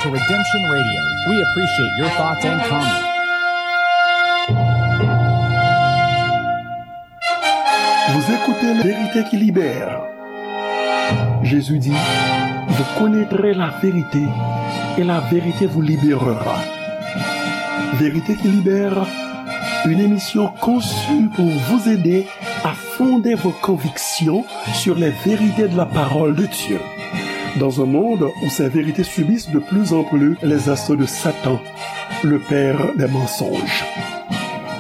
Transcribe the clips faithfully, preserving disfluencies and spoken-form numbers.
Redemption Radio. We appreciate your thoughts and comments. Vous écoutez La Vérité qui libère. Jésus dit, vous connaîtrez la vérité et la vérité vous libérera. Vérité qui libère, une émission conçue pour vous aider à fonder vos convictions sur les vérités de la parole de Dieu. Dans un monde où ces vérités subissent de plus en plus les assauts de Satan, le père des mensonges.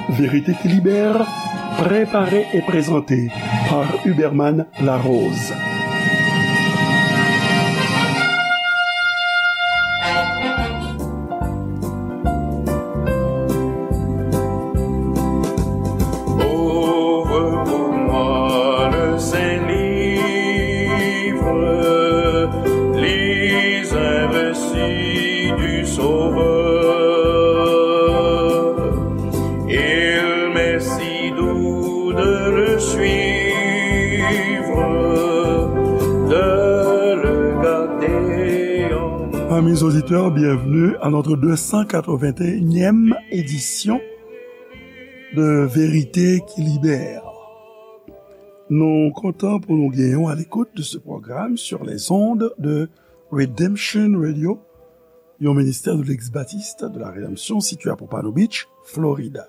Vérité qui libère, préparée et présentée par Huberman Larose. Ouvre pour moi le saint livre, lis un récit du Sauveur. Il m'est si doux de le suivre, de le garder en... Amis auditeurs, bienvenue à notre deux cent quatre-vingt-unième édition de Vérité qui libère. Nou kontan pou nou gen w à l'écoute de ce programme sur les ondes de Redemption Radio, yon ministère de l'ex-baptiste de la Rédemption situé à Pompano Beach, Florida.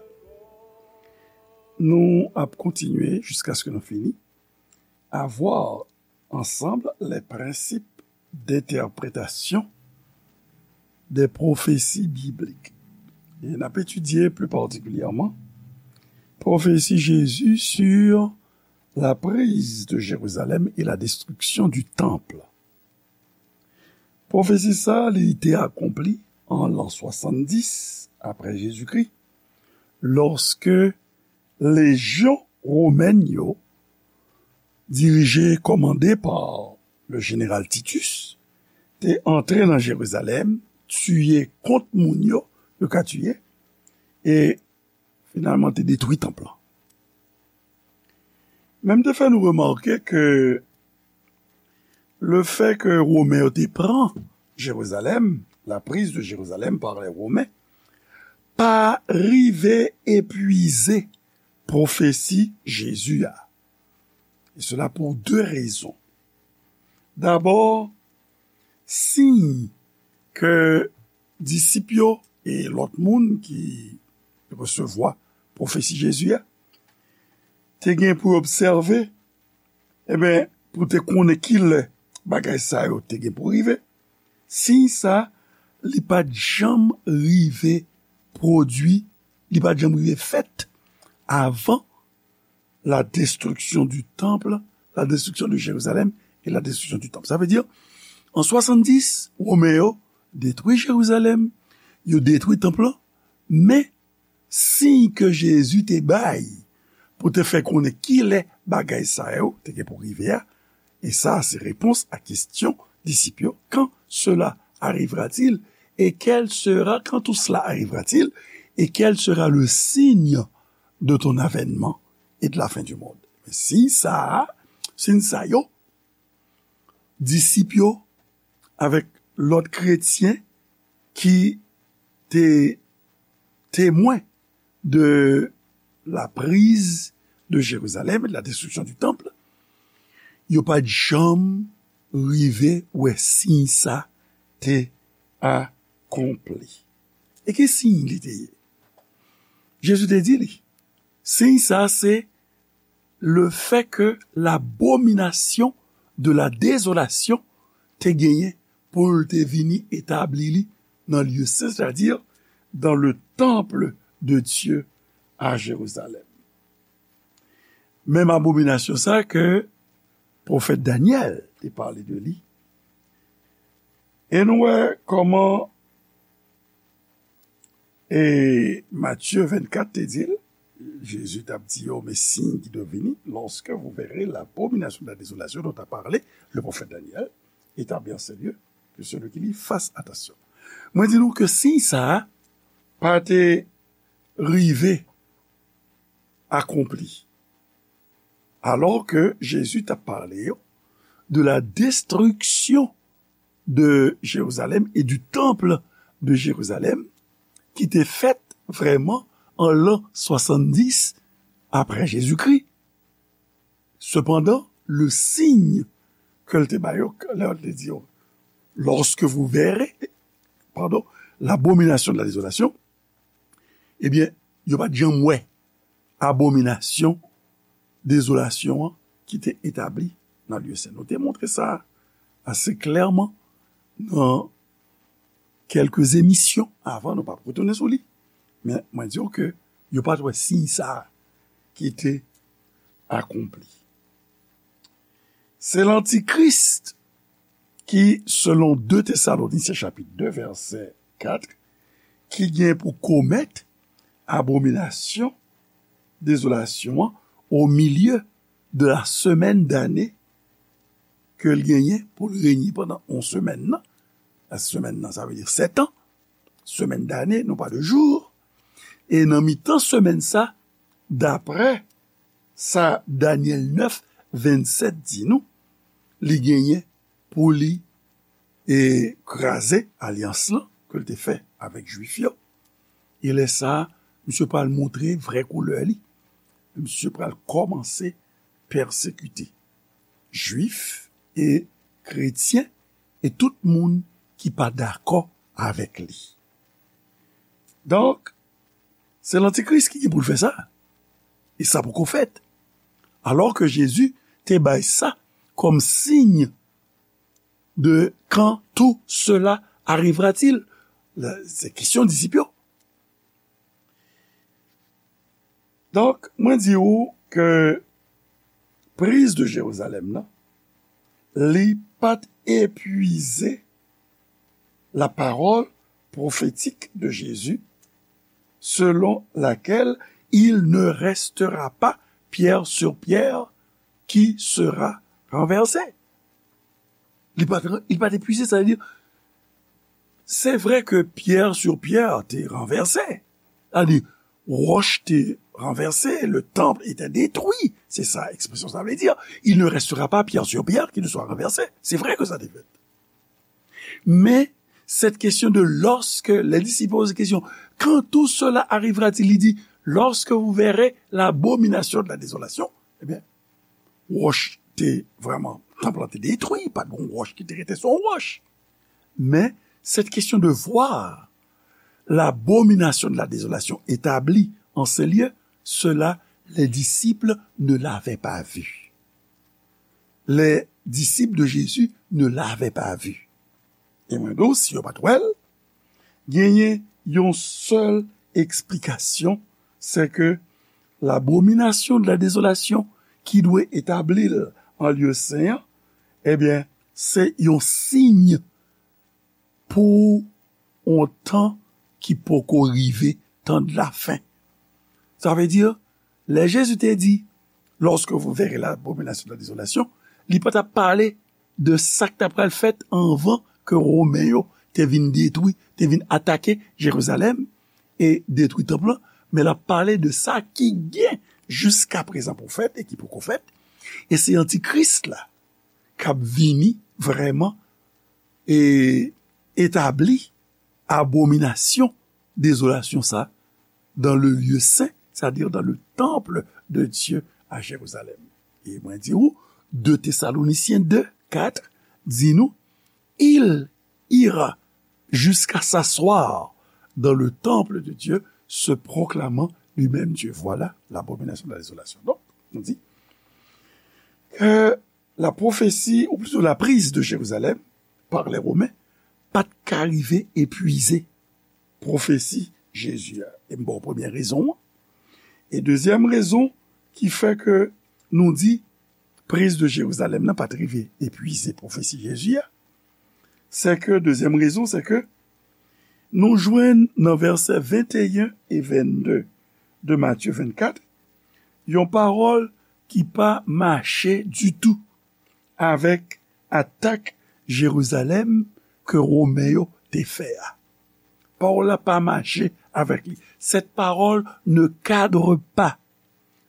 Nou ap kontinye jusqu'à ce que nou fini à voir ensemble les principes d'interprétation des prophéties bibliques. E n ap etidye pli patikilyèman pwofesi Jezi sur la prise de Jérusalem et la destruction du temple. Pwofesi sa, li te akonpli an l'an soixante-dix après Jésus-Christ, lòske lejyon womèn yo, dirije, kòmande pa le jeneral Titus, te antre nan Jerizalèm, tiye kont moun yo, yo ka tiye, e finalman te detwi tanp lan. Men m te fè nou remake ke le fait que Women yo te pran Jérusalem, la prise de Jérusalem par les Romains, pa rive epwize pwofesi Jezi a. E sela pou de rezon. Dabò, siy ke disip yo e lòt moun ki resevwa pwofesi Jezi a te gen pou obsève, ebyen, pou te konnen kilè bagay sa yo te gen pou rive, siy sa, li pa t janm rive pwodui, li pa t janm rive fèt avan la destruction du temple, la destruction de Jérusalem et la destruction du temple. Sa vle di, an swasanndis, Women yo detwi Jerizalèm, yo detwi tanp lan, men siy ke Jezi te bay pou te fè konnen kilè bagay sa yo te gen pou rive a, e sa se repons a kesyon disip yo, quand cela arrivera-t-il? Et quel sera, quand tout cela arrivera-t-il? Et quel sera le signe de ton avènement et de la fin du monde? Men siy sa a, siy sa yo, disip yo avèk lòt kretyen ki te temwen de la prise de Jérusalem et de la destruction du temple, yo pa t janm rive wè siy sa te akonpli. E ki siy li te ye? Jezi te di li, siy sa se le fait que l'abomination de la désolation te genyen pou l te vini etabli li nan lye sen, c'est-à-dire dans le temple de Dieu à Jérusalem. Menm abominasyon sa ke pwofèt Danyèl te pale de li. E nou wè kòman e Matye vennkat te di l, Jezi t ap di yo, mais signe qui doit venir, lorsque vous verrez l'abomination de la désolation dont a parlé le prophète Daniel, établi en ce lieu, que celui qui lit fasse attention. Mwen di nou ke siy sa a pa te rive akonpli. Alò ke Jezi t ap pale yo de la destriksyon de Jérusalem et du temple de Jérusalem, ki te fèt vrèman an lan swasanndis apre Jezikri. Sepandan, le signe ke l te ba yo, lè l te di yo, lorsque vous verrez, pardon, l'abomination de la désolation, ebyen, yo pa t janm wè abominasyon dezolasyon an ki te etabli nan lye sen. Nou te montre sa ase klèman nan kèlke emisyon avan, nou p ap retounen sou li. Men mwen di w ke yo pa t wè siy sa a ki te akonpli. Se lantikris ki, selon de Tesalonisyen chapit de, vèsè kat, ki gen pou komèt abominasyon dezolasyon an o milye de la semèn dane ke l genyen pou l renye pandan yon semèn nan. La semèn nan, sa vle di sèt an. Semèn dane, non pa de jou. E nan mitan semèn sa, daprè sa Danyèl nèf, vennsèt di nou, li genyen pou li e kraze alyans lan ke l te fè avèk Jwif yo. E lè sa a, misye pral montre vrè koulè li. Misye pral kòmanse pèsekite Jwif e kretyen e tout moun ki pa dakò avèk li. Donk, se lantikris ki gen pou l fè sa. E sa poko fèt. Alò ke Jezi te bay sa kòm siy de quand tout cela arrivera-t-il? Se kesyon disip yo. Donk, mwen di ou ke priz de Jerizalèm nan, li pa t epuize la parole prophétique de Jésus, selon laquelle il ne restera pas pierre sur pierre qui sera renversée. Li pa t, li pa t epuize, sa vle di, se vre ke pierre sur pierre te ranvèse. Sa vle di, wòch te ranvèse, le temple était détruit. Se sa ekspresyon sa vle di. Il ne restera pas pierre sur pierre qui ne soit renversée. Se vre ke sa te fèt. Men, cette question de lorsque, les disciples posent question, quand tout cela arrivera-t-il? Li di, lorsque vous verrez l'abomination de la désolation, ebyen, wòch te vrèman, tanp lan te detwi, pa t gen wòch ki te rete sou yon wòch. Men, cette question de voir l'abomination de la désolation établie en ce lieu, cela, les disciples ne l'avaient pas vu. Les disciples de Jésus ne l'avaient pas vu. E mwen di w, si yo pa t wè l, genyen yon sèl eksplikasyon, se ke l'abomination de la désolation ki dwe etabli l an lye sen an, ebyen, se yon siy pou yon tan ki poko rive, tan de la fen. Sa vle di, lè Jezi te di, lorsque vous verrez l'abomination de la désolation, li pa t ap pale de sa k ta pral fèt anvan ke Women yo te vin detwi, te vin atake Jerizalèm e detwi tanp lan, men l ap pale de sa ki gen jiskaprezan pou fèt e ki poko fèt. E se antikris la k ap vini vrèman e etabli abominasyon, dezolasyon sa dans le lieu saint, c'est-à-dire dans le temple de Dieu à Jérusalem. E mwen di ou, de Tesalonisyen de, kat, di nou, il ira jusqu'à s'asseoir dans le temple de Dieu, se proclamant lui-même Dieu. Voilà l'abomination de la désolation. Donk, nou di ke la prophétie, ou plutôt la prise de Jérusalem par les Romains, pa t ka rive epuize pwofesi Jezi a. E m ba w premye rezon an. E dezyèm rezon ki fè ke nou di priz de Jerizalèm nan pa t rive epuize pwofesi Jezi a, se ke, dezyèm rezon, se ke nou jwenn nan vèsè venteyen e vennde de Matye vennkat, yon pawòl ki pa mache ditou avèk atak Jerizalèm ke Women yo te fè a. Pawòl la pa mache avèk li. Cette parole ne cadre pas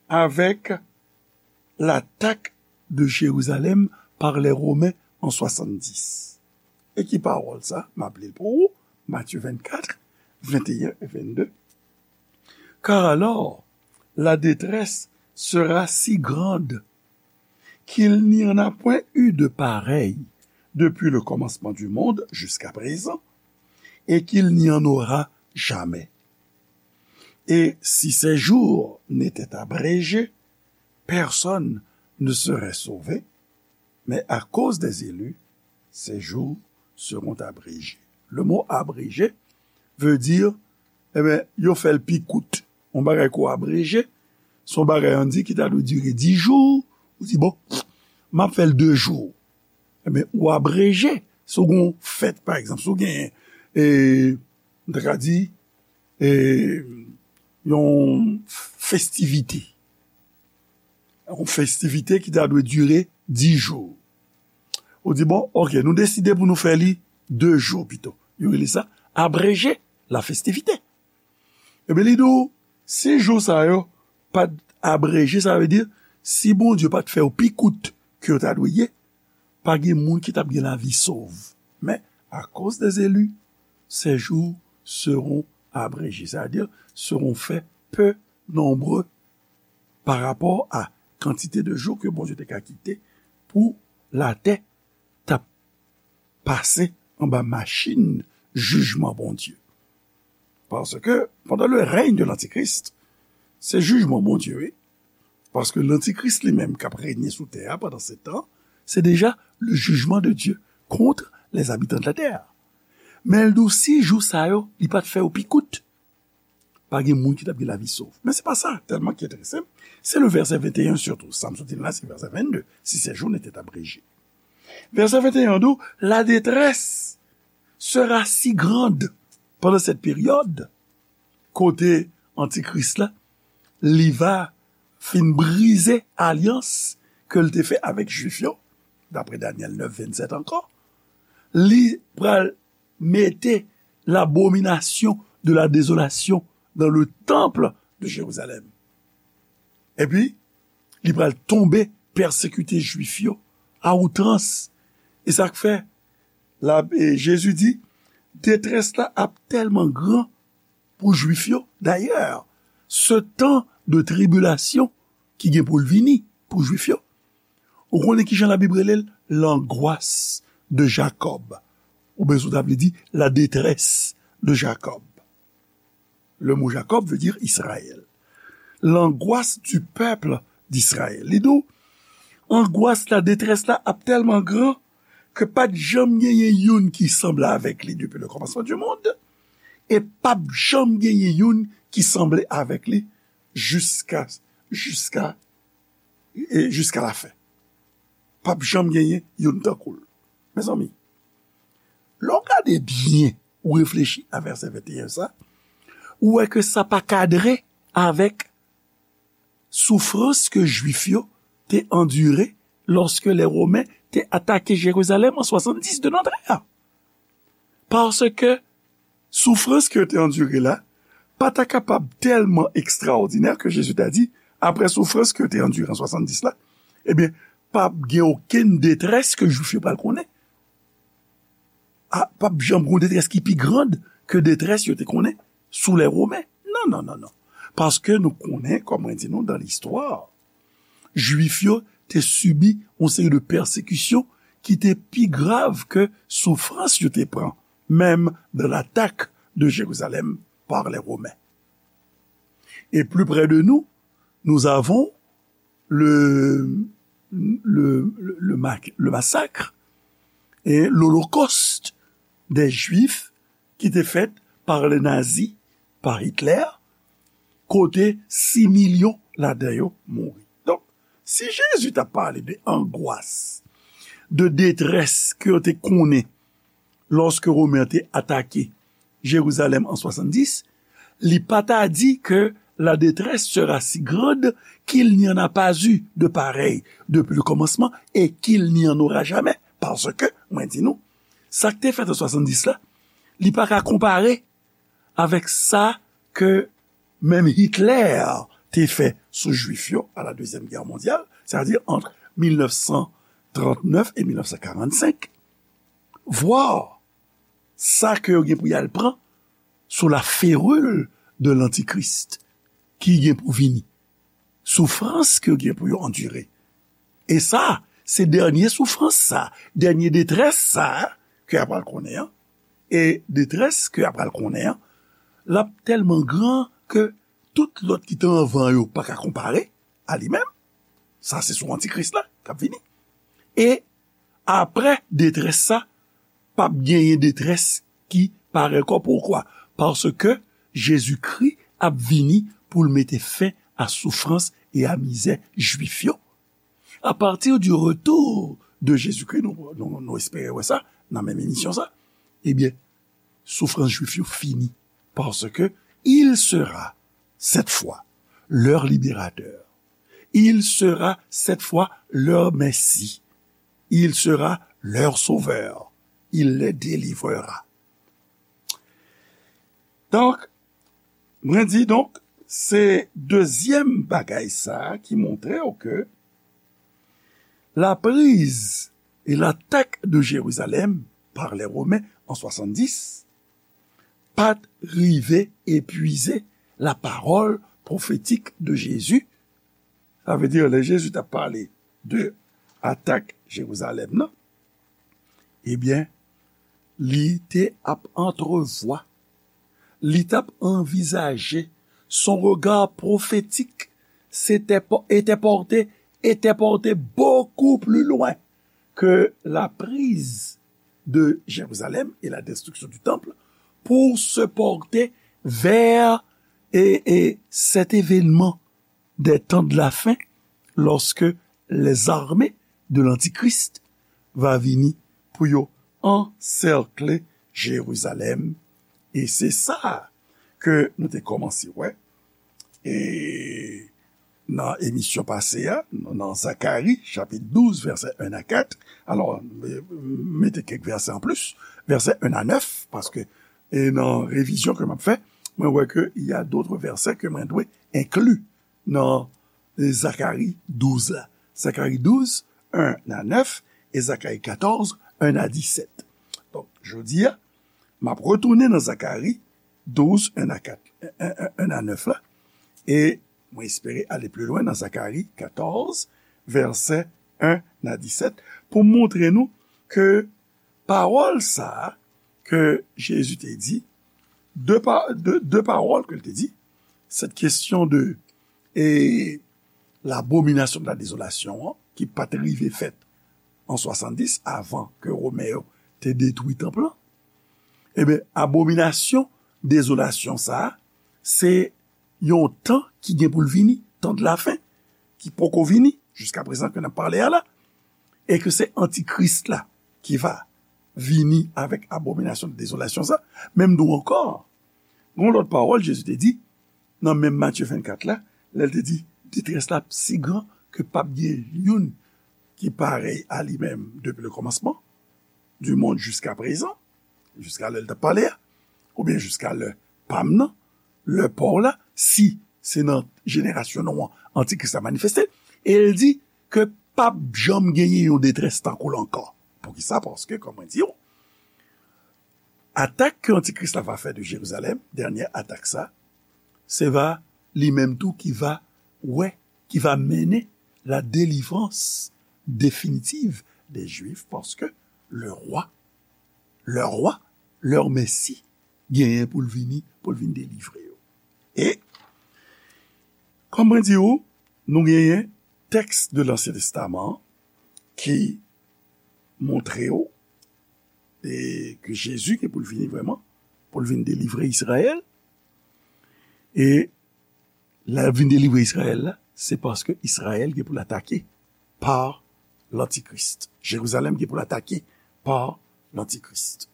avec l'attaque de Jérusalem par les Romains en soixante-dix. E ki pawòl sa? M ap li l pou ou, Matye vennkat, venteyen e vennde. Car alors, la détresse sera si grande qu'il n'y en a point eu de pareil depuis le commencement du monde jusqu'à présent, et qu'il n'y en aura jamais. Et si ces jours n'étaient abrégés, personne ne serait sauvé, mais à cause des élus, ces jours seront abrégés. Le mot abrégé veut dire, eh ben, yo fè l pi kout. Yon bagay ko abreje, se yon bagay, ann di, ki ta dwe dire dis jou, ou di, bon, m ap fè l de jou. Ebyen, ou abreje, si w gen yon fèt, pa egzanp, si w gen, e, m ta ka di, e, yon festivite. Yon festivite ki ta dwe dire dis jou. Ou di, bon, ok, nou deside pou nou fè li de jou pito. Yo rele sa abreje la festivite. Ebyen, li di w, si jou sa yo pa t abreje, sa vle di, si Bondye pa t fè yo pi kout ke yo ta dwe ye, pa gen moun ki t ap gen lavi sov. Men, akoz des élus, ces jours seront abrégés. Sa vle di, seront faits peu nombreux pa rapò a kantite de jou ke Bondye te ka kite pou latè t ap pase anba machin jijman Bondye. Paske, pendant le règne de l'Antichrist, se jijman Bondye, wi. Paske Lantikris li menm k ap renye sou tè a pandan se tan, se deja le jugement de Dieu contre les habitants de la terre. Men l di w si jou sa yo, li pa t fè yo pi kout, pa gen moun ki t ap gen lavi sov. Men se pa sa tèlman ki enterese m. Se le vèsè venteyen sitou. Sa m sot di la, se vèsè vennde. Si ces jours n'étaient abrégés. Vèsè venteyen di w, la détresse sera si grande pendant cette période, kote Antikris la, li va fin brize alyans ke l te fè avèk Jwif yo, daprè Danyèl nèf vennsèt ankò, li pral mete l'abomination de la désolation dans le temple de Jérusalem. Epi, li pral tonbe, pèsekite Jwif yo a outrans. E sa k fè, la, e Jezi di, detrès la ap tèlman gran pou Jwif yo. Dayè, se tan de tribilasyon ki gen pou l vini pou Jwif yo, ou konnen ki jan Labib rele l? L'angoisse de Jacob. Oubyen si w ta vle di, la détresse de Jacob. Le mot Jacob veut dire Israël. L'angoisse du peuple d'Israël. Li di w, angwas la, detrès la ap tèlman gran ke pa t janm genyen youn ki sanble avèk li depi le commencement du monde, e p ap janm genyen youn ki sanble avèk li jiska, jiska, e jiska lafen. P ap janm genyen youn tankou l. Mezanmi, lè w gade byen, ou reflechi a vèsè venteyen sa, ou wè ke sa pa kadre avèk soufrans ke Jwif yo te andire lòske lè Women te atake Jerizalèm an swasanndis de notre ère. Paske soufrans ke yo te andire la pa ta kapab tèlman ekstraòdinè ke Jezi ta di, apre soufrans ke yo te andire an swasanndis la, ebyen, p ap gen okenn detrès ke Jwif yo pral konnen. A, p ap janm gen yon detrès ki pi grand ke detrès yo te konnen sou lè Women. Non, non, non, non. Paske nou konnen, kòm mwen di nou, dan listwa, Jwif yo te sibi yon seri de pèsekisyon ki te pi grav ke soufrans yo te pran, menm dans l'attaque de Jérusalem par les Romains. Et plus près de nous, nous avons le, le, le, le ma-, le massacre et l'holocauste des Juifs ki te fèt par le nazi, par Hitler, kote sis milyon ladan yo mouri. Donk, si Jezi t ap pale de angwas, de detrès ke yo te konnen lòske Women te atake Jerizalèm an swasanndis, li pa ta di ke la détresse sera si grande qu'il n'y en a pas eu de pareil depuis le commencement et qu'il n'y en aura jamais. Paske, mwen di nou, sa k te fèt an swasanndis la, li pa ka konpare avèk sa ke menm Hitler te fè sou Jwif yo à la Deuxième Guerre mondiale, c'est-à-dire entre mil nèf san trant nèf et mil nèf san karannsenk. vwa sa ke yo gen pou y al pran sou la feril de lantikris ki gen pou vini, soufrans ke yo gen pou yo andire. E sa, se dènye soufrans sa, dènye detrès sa ke y ap pral konnen an. E detrès ke y ap pral konnen an, l ap tèlman gran ke tout lòt ki te anvan yo pa ka konpare a li menm. Sa se sou antikris la k ap vini. E apre detrès sa, p ap genyen detrès ki parèy ankò. Poukwa? Paske Jezikri ap vini pou l mete fen a soufrans e a mizè Jwif yo. A partir du retour de Jésus-Christ, nou, nou, nou espere wè sa nan menm emisyon sa, ebyen, soufrans Jwif yo fini, paske il sera cette fois leur libérateur. Il sera cette fois leur Messie. Il sera leur sauveur. Il les délivrera. Donk, mwen di, donk, se dezyèm bagay sa a ki montre w ke la prise et l'attaque de Jérusalem par les Romains en soixante-dix pa t rive epuize la parole prophétique de Jésus. Sa vle di, lè Jezi t ap pale de atak Jerizalèm nan, ebyen, li te ap antrevwa, li t ap anvizaje, son regard prophétique s'était po-, était porté, était porté beaucoup plus loin que la prise de Jérusalem et la destruction du temple pour se porter vers et, et cet événement des temps de la fin, lorsque les armées de l'Antichrist va vini pou yo ansèkle Jerizalèm. E se sa ke nou te kòmanse wè. E nan emisyon pase a, nan Zakari, chapit douz, vèsè en a kat. Alò, mete kèk vèsè an plis, vèsè en a nèf, paske, e nan revizyon ke m ap fè, mwen wè ke y a d'autres versets ke mwen dwe enkli nan Zakari douz la. Zakari douz, en a nèf, e Zakari katòz, en a disèt. Donk, jodi a, m ap retounen nan Zakari douz, en a kat, en, en, en a nèf la, e mwen espere ale pli lwen nan Zakari katòz, vèsè en a disèt, pou montre nou ke pawòl sa a ke Jezi te di, de pa-, de, de pawòl ke l te di, cette question de, e, l'abomination de la désolation an, ki pa t rive fèt an swasanndis, avan ke Women yo te detwi tanp lan. Ebyen, abominasyon dezolasyon sa a, se yon tan ki gen pou l vini, tan de la fen, ki poko vini, jiska prezan ke n ap pale a la, e ke se antikris la ki va vini avèk abominasyon de dezolasyon sa. Men m di w ankò, gon lòt pawòl Jezi te di, nan menm Matye vennkat la, lè l te di, detrès la si gran ke p ap gen youn ki parèy a li menm depi le kòmansman du monde jusqu'à présent, jiska lè l t ap pale a, oubyen jiska lè pa m nan, lè pa w la, si se nan jenerasyon nou an, antikris la manifeste, e l di ke p ap janm genyen yon detrès tankou l ankò. Poukisa? Paske, kòm mwen di w, atak ke antikris la va fè de Jerizalèm, dènye atak sa, se va li menm tou ki va wè, ki va mennen la délivrance définitive des Juifs, paske le roi, le roi, leur Messie, genyen pou l vini, pou l vin delivre yo. E, kòm mwen di w, nou genyen tèks de Lansyen Testaman an ki montre w, e, ke Jezi gen pou l vini vrèman, pou l vin delivre Izrayèl. E lè l vin delivre Izrayèl la, se paske Izrayèl gen pou l atake pa lantikris. Jerizalèm gen pou l atake pa lantikris.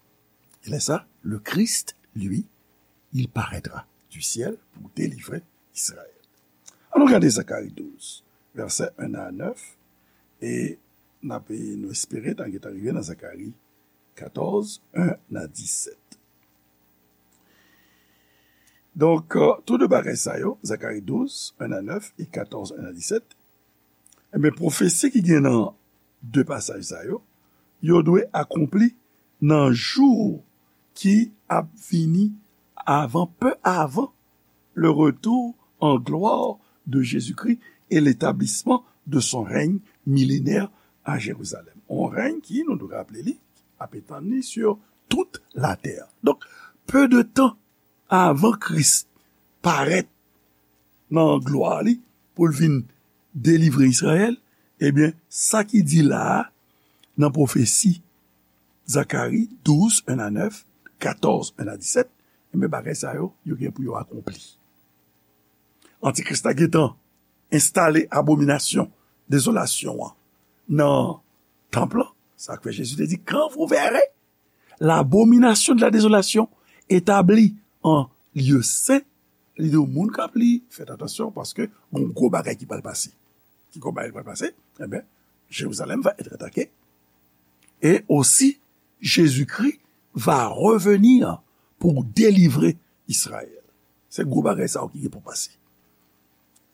E lè sa, le Christ, lui, il paraîtra du ciel pour délivrer Israël. Ann nou gade Zakari douz, vèsè en a nèf, e n ap, nou espere n a gentan rive nan Zakari katòz, en a disèt. Donk, euh, tou de bagay sa yo, Zakari douz, en a nèf, e katòz, en a disèt, enben, pwofesi ki gen nan de pasaj sa yo, yo dwe akonpli nan jou ki ap vini avan, peu avant le retour en gloire de Jésus-Christ et l'établissement de son règne millénaire à Jérusalem. On règne ki, nou dwe raple li, ap etann li sur toute la terre. Donk, peu de temps avan Kris parèt nan glwa li pou l vin delivre Izrayèl, ebyen, sa ki di la a nan pwofesi Zakari douz, en a nèf, katòz, en a disèt, ebyen, bagay sa yo, yo gen pou yo akonpli. Antikris la gentan enstale abominasyon dezolasyon an nan tanp lan. Sa k fè Jezi te di, quand vous verrez l'abomination de la désolation établie en lieu saint, li di moun k ap li, fèt atansyon, paske gon gwo bagay ki pral pase. Ki gwo bagay ki pral pase? Ebyen, Jérusalem va être attaquée. Et aussi, Jésus-Christ va revenir pour délivrer Israël. Se gwo bagay sa yo ki gen pou pase.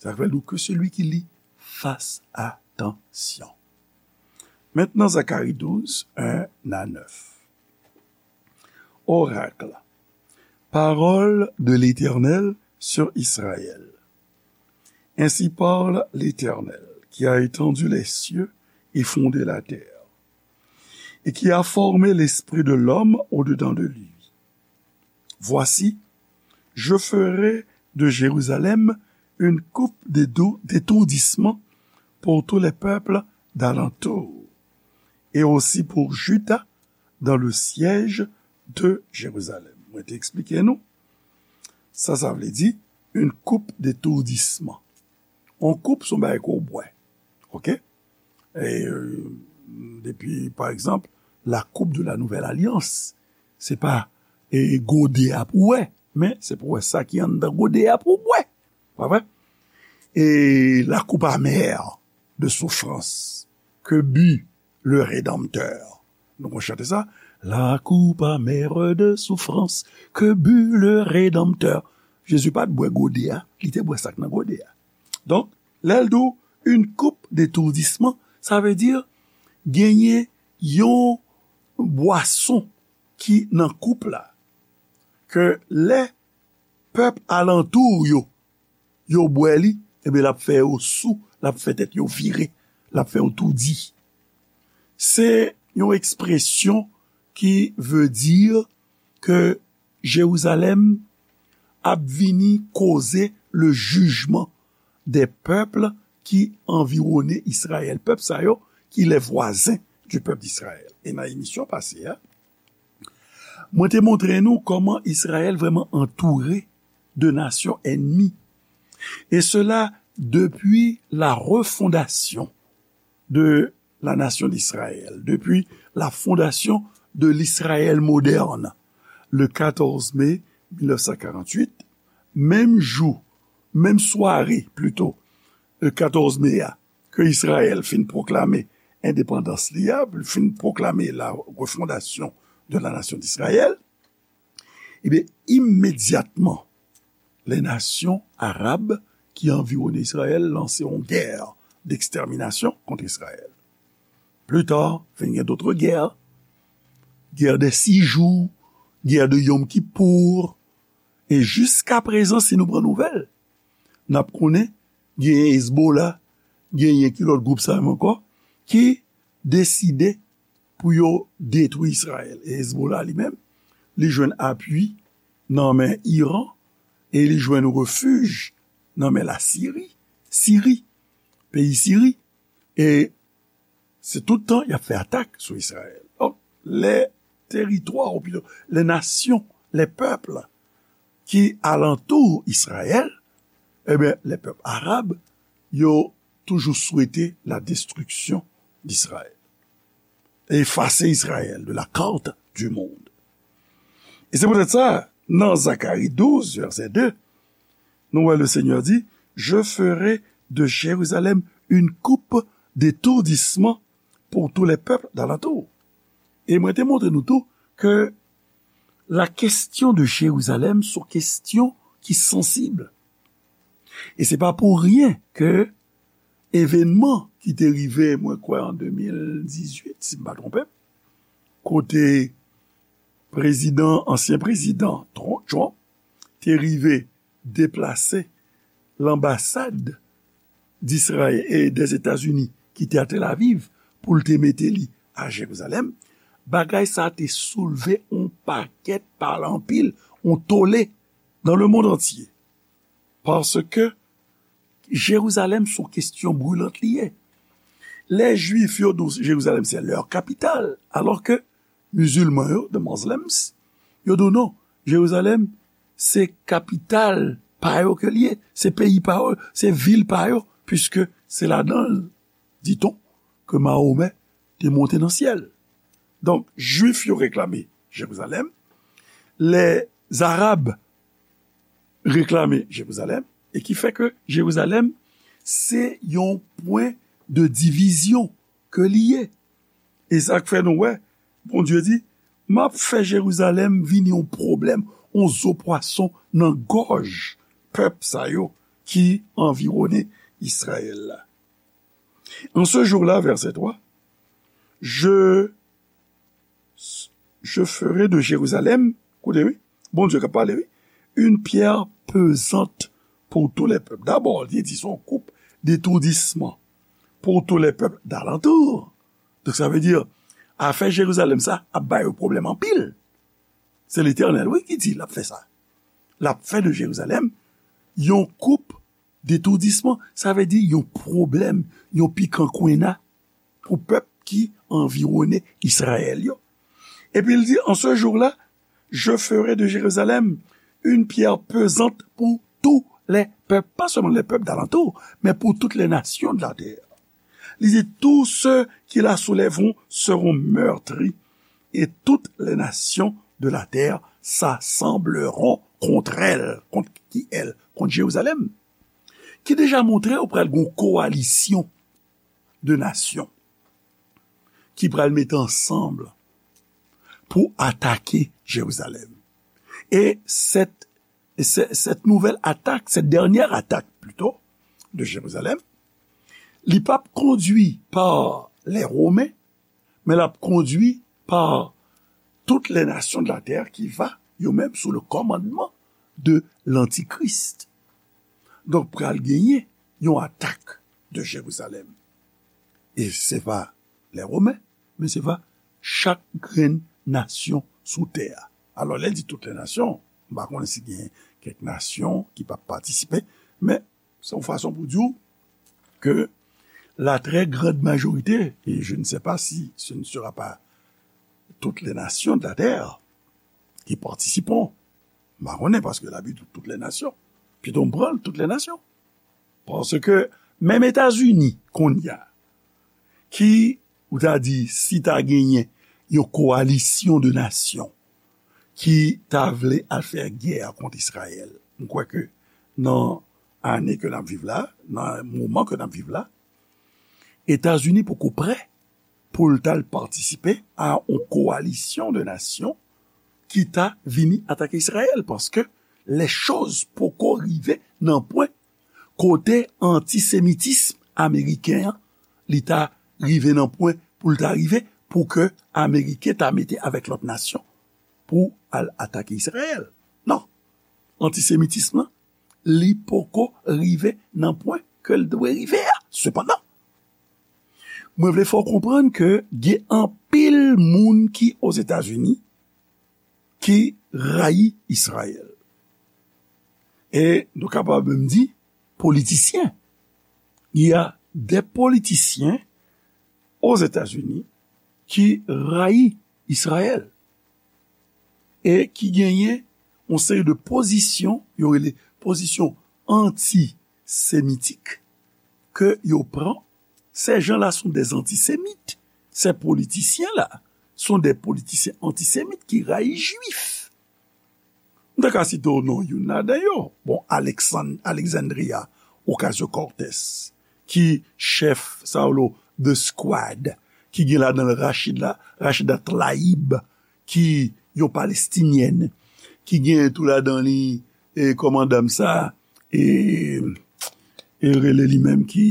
Sa k fè l di, que celui qui lit fasse attention. Maintenant, Zacharie douze, un à neuf. Oracle. Parole de l'Éternel sur Israël. Ainsi parle l'Éternel, qui a étendu les cieux et fondé la terre, et qui a formé l'esprit de l'homme au-dedans de lui. Voici, je ferai de Jérusalem une coupe d'édou-, d'étourdissement pour tous les peuples d'alentour, et aussi pour Juda dans le siège de Jérusalem. Mwen te eksplike nou, sa, sa vle di, une coupe d'étourdissement. On koup, se yon bagay ke w bwè. Oke? E, euh, depi, pa egzanp, la coupe de la nouvelle alliance. Se pa, e, gode a pou w bwè, men se pou w bwè sa ki anndan gode a pou w bwè. Pa vre? Et la coupe amère de souffrance que but le Rédempteur. Nou konn chante sa. La coupe amère de souffrance que but le Rédempteur. Jezi pa t bwè gode a, li te bwè sa k nan gode a. Donk, lè l di w une coupe d'étourdissement, sa vle di genyen yon bwason ki nan koup la, ke lè pèp alantou yo, yo bwè li, ebyen, l ap fè yo sou, l ap fè tèt yo vire, l ap fè yo toudi. Se yon ekspresyon ki vle di ke Jerizalèm ap vini koze le jugement des peuples qui environnaient Israël. Pèp sa yo ki les voisins du peuple d'Israël. E nan emisyon pase a, mwen te montre nou kòman Izrayèl vrèman antoure de nasyon ènmi. Et cela depuis la refondation de la nation d'Israël, depuis la fondation de l'Israël moderne, le quatorze mai mille neuf cent quarante-huit, menm jou, menm sware, plito, le quatorze mai a, ke Izrayèl fin pwoklame endepandans li a, fin pwoklame la refondation de la nation d'Israël, ebyen, imedyatman, les nations arabes qui environnaient Israël lanse yon guerre d'extermination contre Israël. Plus tard, vin gen d'autres guerres, guerre des six jours, guerre de Yom Kippour, e jiska prezan, si nou pran nouvèl, n ap konnen genyen Hezbollah, genyen ki lòt gwoup sa menm ankò, ki deside pou yo detwi Izrayèl. E Hezbollah li menm, li jwenn apui nan men Iran e li jwenn refij nan men Lasiri, Siri, peyi Siri. E se tout tan y ap fè atak sou Izrayèl. Donk, les territoires, ou plutôt, les nations, les peuples qui alentourent Israël, ebyen, les peuples arabes, yo toujou swete la destruction d'Israël. Efase Izrayèl de la carte du monde. E se poutèt sa, nan Zakari douz, vèsè de, nou wè le Seigneur dit, je ferai de Jérusalem une coupe d'étourdissement pour tous les peuples d'alentour. E mwen te montre nou tou ke la question de Jérusalem se yon kesyon ki sansib. E se pa pou ryen ke evènman ki te rive, mwen kwè, an de mil dizuit, si m pa twonpe m, kote prezidan, ansyen prezidan Tr- Trump te rive deplase lanbasad d'Israyèl e dèzetazini ki te a Tel Aviv pou l te mete li a Jerizalèm, bagay sa te soulve yon pakèt, pale anpil, yon tole dans le monde entier. Paske Jerizalèm se yon kesyon brilant li ye. Lè Jwif yo di w Jerizalèm se lè kapital, alò ke mizilman yo, the Muslims, yo di w non, Jerizalèm se kapital pa yo ke li ye, se peyi pa yo, se vil pa yo, piske se ladan l, diton, ke Mahomè te monte nan syèl. Donk, Jwif yo reklame Jerizalèm, lè Zarab reklame Jerizalèm, e ki fè ke Jerizalèm se yon pwen de divizyon ke li ye. E sa k fè nou wè, Bondye di, m ap fè Jerizalèm vin yon pwoblèm, yon zo pwason nan gòj pèp sa yo ki anviwone Izrayèl la. En ce jour-là, verset trois, je, je ferai de Jérusalem, koute wi, Bondye k ap pale wi, une pierre pesante pour tous les peuples. Dabò, li di se yon koup detoudisman pour tous les peuples d'alentour. Donk, sa vle di, afè Jerizalèm sa ap ba yo pwoblèm anpil. Se Letènèl, wi, ki di l ap fè sa. L ap fè de Jerizalèm yon koup detoudisman, sa vle di yon pwoblèm, yon pikan kwenna pou pèp ki anviwone Izrayèl yo. Epi l di, en ce jour-là, je ferai de Jérusalem une pierre pesante pour tous les peuples, pas seulement les peuples d'alentour, mais pour toutes les nations de la terre. Li di, tous ceux qui la soulèveront seront meurtris, et toutes les nations de la terre s'assembleront contre elle, contre qui elle, contre Jérusalem. Ki deja montre ou pral gen yon kowalisyon de nasyon ki pral mete ansanm pou atake Jerizalèm. E cette, cette nouvelle attaque, cette dernière attaque plutôt, de Jérusalem, li p ap kondwi pa les Romains, men l ap kondwi pa toutes les nations de la terre qui va, yo menm, sous le commandement de l'Antichrist. Donk, pral genyen yon atak de Jerizalèm. E se pa les Romains, men se pa chak grenn nasyon sou tè a. Alò, lè l di toutes les nations, m pa konnen si gen kèk nasyon ki p ap patisipe, men se yon fason pou di w ke la très grande majorité, et je ne sais pas si ce ne sera pas toutes les nations de la terre qui participeront. M pa konnen, paske Labib di toutes les nations. Pito m pran l, toutes les nations. Paske menm Etazini, kounye a, ki, ou ta di, si ta genyen yon kowalisyon de nasyon ki ta vle al fè gè kont Izrayèl, m kwè ke nan ane ke n ap viv la, nan moman ke n ap viv la, Etazini poko prè pou l t al patisipe a yon kowalisyon de nasyon ki ta vini atake Izrayèl, paske lè choz poko rive nan pwen kote antisemitism ameriken an, li ta rive nan pwen pou l ta rive, pou ke Ameriken ta mete avèk lòt nasyon pou al atake Izrayèl. Non. Antisemitism lan, li poko rive nan pwen ke l dwe rive a. Sepandan, mwen vle fè w konprann ke gen anpil moun ki Ozetazini ki rayi Izrayèl. E nou kapab menm di politisyen. Il y a des politiciens aux États-Unis ki rayi Izrayèl e ki genyen yon seri de pozisyon, yo rele pozisyon antisemitik, ke yo pran. Ces gens-là sont des antisémites. Ces politiciens-là sont des politiciens antisémites ki rayi Jwif. M ta ka site w non youn ladan yo. Bon, Alexand-, Alexandria Ocasio-Cortez, ki chèf, sa yo rele The Squad, ki gen ladan l Rachida, Rachida Tlaib, ki yon Palestinyèn, ki gen tou ladan li, e, kòmandan sa, e, e rele li menm ki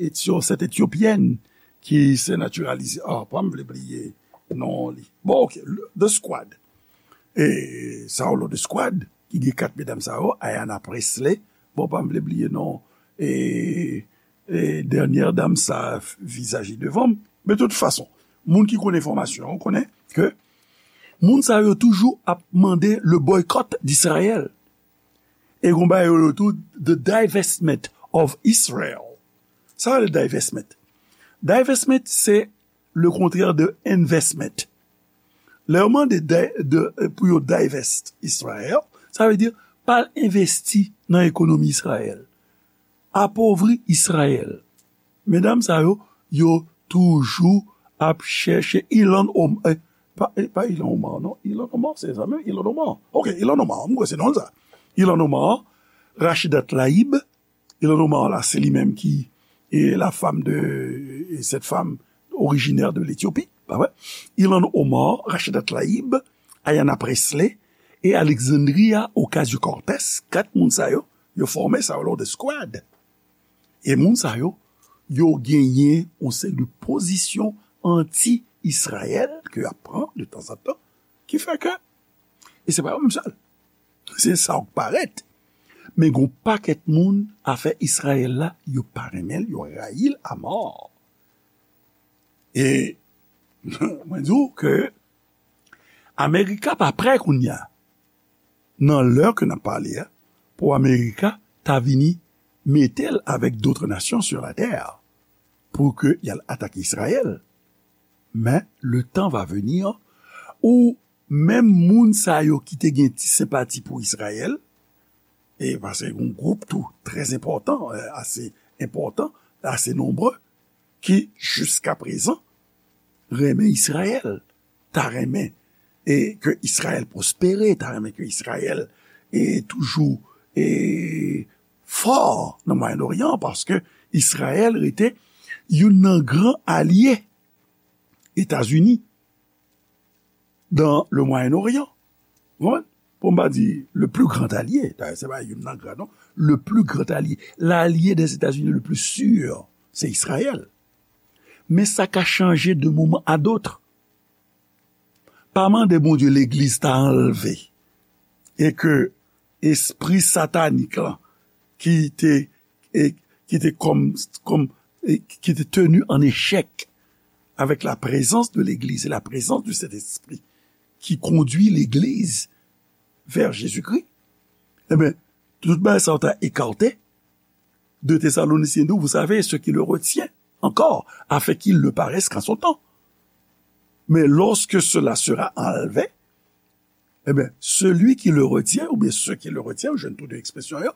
Etyo-, sèt Etyopyèn, ki se natiralize. Ah, pa m vle bliye non li. Bon, ok, le- The Squad. e, sa yo lòt eskwad, ki gen kat medam sa yo, Ayanna Pressley, bon, pa m vle bliye non, e, e, dènyè dam sa, vizaj li devan m. Men tout fason, moun ki konn enfòmasyon, konnen ke moun sa yo toujou ap mande le boycott d'Israël. E gon bagay yo rele tou the divestment of Israel. Sa rele divestment. Divestment, se le contraire de investment. Lè yo mande de, de, pou yo divest Israel, sa vle di pa al envesti nan ekonomi Israel. Apovri Israel. Medam sa yo, yo toujou ap chèche Ilhan Omar, eh, pa, eh, pa Ilhan Omar, non. Ilhan Omar, se sa menm, Ilhan Omar. Ok, Ilhan Omar, m kwè se non l sa. Ilhan Omar, Rachida Tlaib, Ilhan Omar la, se li menm ki e la femme de, e cette femme originaire de l'Éthiopie, pa vre? Ilhan Omar, Rachida Tlaib, Ayanna Pressley e Alexandria Ocasio-Cortez, kat moun sa yo, yo fòme sa yo lòt eskwad. E moun sa yo, yo genyen yon seri de pozisyon anti-Izrayèl ke y ap pran de tanzantan, ki fè ke, e se pa yo menm sèl, se sa k parèt, men gon pakèt moun afè Izrayèl la, yo pa renmen l, yo rayi l amò. E mwen di w ke Amerika pa prè kounye a, nan lè ke n ap pale a, pou Amerika ta vini mete l avèk d'autres nations sur la terre pou ke y al atake Izrayèl. Men le temps va venir où menm moun sa yo ki te gen ti senpati pou Izrayèl, e paske yon gwoup tou trè enpòtan, eh, ase enpòtan, ase nonbre, ki jiska prezan renmen Izrayèl, ta renmen e ke Izrayèl pwospere, ta renmen ke Izrayèl e toujou e fò nan Mwayen Oryan, paske Izrayèl rete youn nan gran alye Etazini dans le Moyen-Orient. Ou konprann? Pou m pa di le plus grand allié, dayè se pa youn nan gran non, le plus grand allié, l'allié des États-Unis le plus sûr, se Izrayèl. Men sa ka chanje de moman a dot. Pa mande Bondye legliz ta anlve e ke espri satanik lan ki te, e, ki te kòm, kòm, e, ki te tenu en échec avec la présence de l'Église et la présence du Saint-Esprit qui conduit l'Église vers Jésus-Christ, eh bien, tout bagay sa yo ta écarté. Deux Thessaloniciens douze, vous savez, ce qui le retient encore, afin qu'il ne paraisse qu'en son temps. Mais lorsque cela sera enlevé, eh bien, celui qui le retient, ou bien ceux qui le retiennent, ou jwenn tou de ekspresyon yo,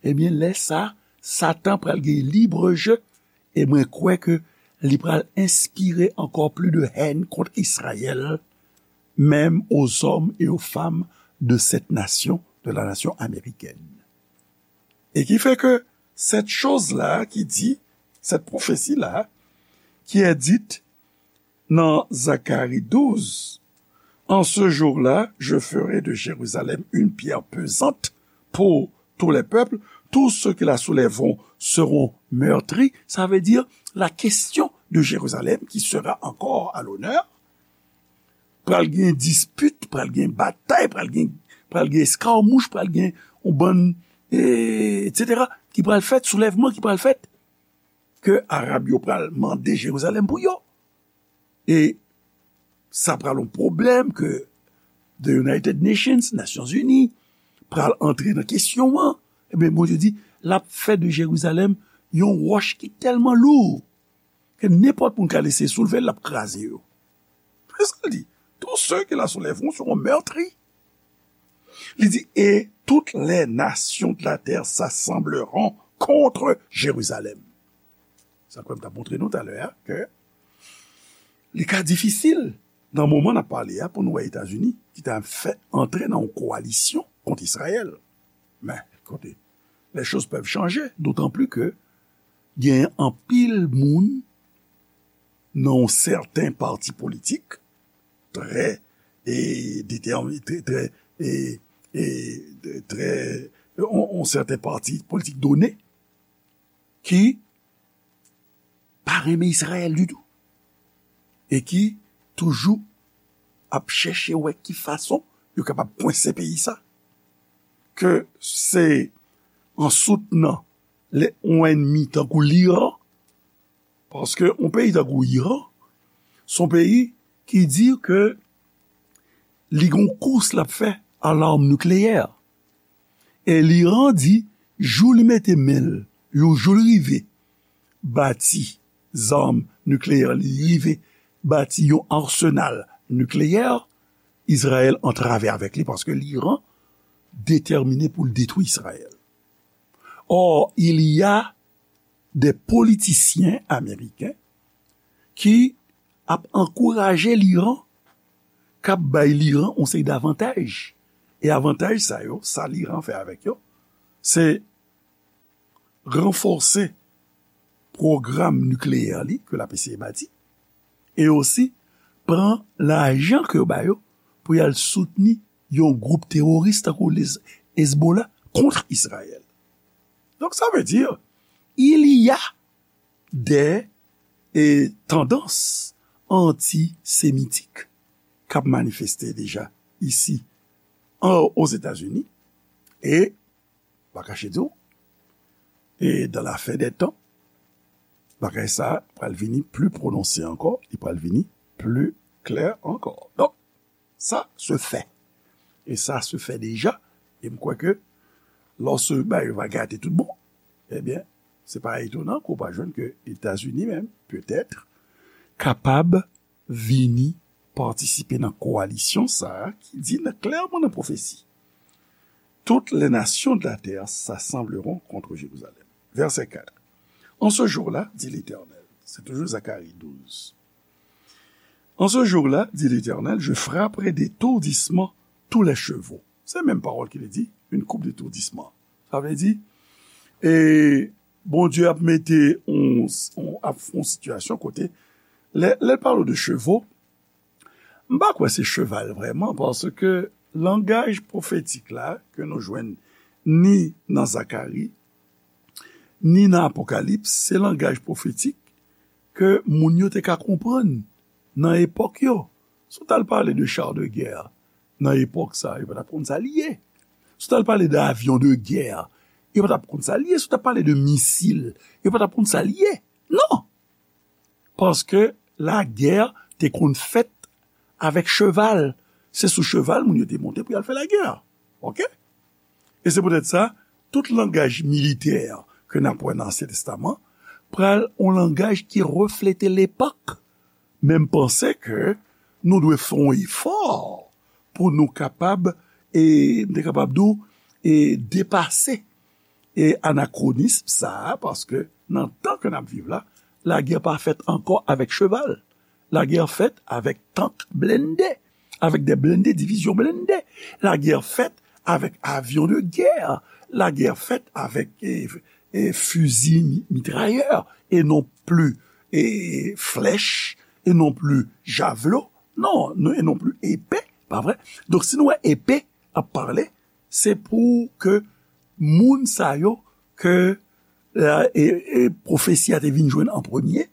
eh bien, lè sa, Satan pral gen libre jeu, e mwen kwè ke li pral enspire encore plus de haine contre Israël, même aux hommes et aux femmes de cette nation, de la nation américaine. Et qui fait que cette chose-là qui dit, cette prophétie-là, qui est dite dans Zacharie douze, en ce jour-là, je ferai de Jérusalem une pierre pesante pour tous les peuples, tous ceux qui la soulèveront seront meurtris. Ça veut dire la question de Jérusalem qui sera encore à l'honneur. Pral gen dispit, pral gen batay, pral gen, pral gen eskamouch, pral gen yon bann, e, et cetera, ki pral fèt, soulèvman ki pral fèt, ke Arab yo pral mande Jerizalèm pou yo. E sa pral yon pwoblèm ke the United Nations, Nasyonzini, pral antre nan kesyon an. Ebyen, Bondye di, l ap fè de Jerizalèm yon wòch ki tèlman lou ke nenpòt moun ka eseye soulve l, l ap kraze yo. Se sa l di. Tous ceux qui la soulèveront seront meurtris. Li di, et toutes les nations de la terre s'assembleront contre Jérusalem. Sa kwè m t ap montre nou talè a, ke li ka difisil nan moman n ap pale a pou nou wè Etazini ki ta fè antre nan yon kowalisyon kont Izrayèl. Men, kote, les choses peuvent changer, d'autant plus que gen anpil moun nan yon sèten pati politik, trè, e, detèmi-, trè, trè, e, e, trè, yon, yon sèten pati politik done, ki pa renmen Izrayèl ditou. E ki toujou ap chèche wè ki fason yo kapab kwense peyi sa, ke se an soutnan yon ènmi tankou Liran, paske yon peyi tankou Iran, se yon peyi ki di ke li gen yon kous l ap fè a l'arme nucléaire. E Liran di, jou li mete men l, yon jou li rive bati zam nikleyè, li rive bati yon arsenal nikleyè, Izrayèl antrave avèk li paske Liran detèmine pou l detwi Izrayèl. Or, il y a des politiciens américains ki ap ankouraje Liran, k ap bay Liran yon seri davantaj. E avantaj sa yo, sa Liran fè avèk yo, se ranfòse pwogram nikleyè li ke l ap eseye bati, e osi pran lajan ke yo ba yo pou y al soutni yon gwoup teworis tankou Hezbollah kont Izrayèl. Donk, sa vle di, il y a des, eh, tendances antisemitik k ap manifeste deja isi an, Ozetazini, e pa kache di w, e dans la fin des temps, bagay sa pral vini pli pwononse ankò, li pral vini pli klè ankò. Donk, sa se fè. E sa se fè deja, e m kwè ke lòske bagay yo va gate tout bon, ebyen, se pa etonan ke w pa jwenn ke Etazini menm, petèt, kapab vini patisipe nan kowalisyon sa a ki di nan, klèman nan pwofesi, toutes les nations de la terre s'assembleront contre Jérusalem. Verset quatre. En ce jour-là, dit l'Éternel, c'est toujours Zacharie douze. En ce jour-là, dit l'Éternel, je frapperai d'étourdissement tous les chevaux. Se menm pawòl ki vle di, une coupe d'étourdissement. Sa vle di, e Bondye ap mete yon, yon, ap fè yon sitiyasyon kote, lè, lè l pale de chevaux, m pa kwè se cheval vrèman, paske langaj pwofetik la ke nou jwenn ni nan Zakari, ni nan Apokalips, se langaj pwofetik ke moun yo te ka konprann nan epòk yo. Si w t al pale de char de guerre nan epòk sa, yo pa t ap konn sa l ye. Si w t al pale de avion de guerre, yo pa t ap konn sa l ye. Si w t ap pale de misil, yo pa t ap konn sa l ye. Non! Paske lagè te konn fèt avèk cheval. Se sou cheval moun yo te monte pou y al fè lagè. Oke? E se poutèt sa, tout langaj militè ke n ap wè nan Ansyen Testaman pral yon langaj ki reflete lepòk. Men m panse ke nou dwe fè yon efò pou nou kapab, e m te kapab di w, e depase e anakronism sa a, paske nan tan ke n ap viv la, lagè pa fèt ankò avèk cheval. Lagè fèt avèk tank blende, avèk de blende, divizyon blende. Lagè fèt avèk avyon de gè. Lagè fèt avèk, e, e fizi mi-, mitrayè, e non pli, e flèch, e non pli javlo, non, non, e non pli epe, pa vre? Donk, si nou wè epe ap pale, se pou ke moun sa yo ke, e, e pwofesi a te vin jwenn an premye,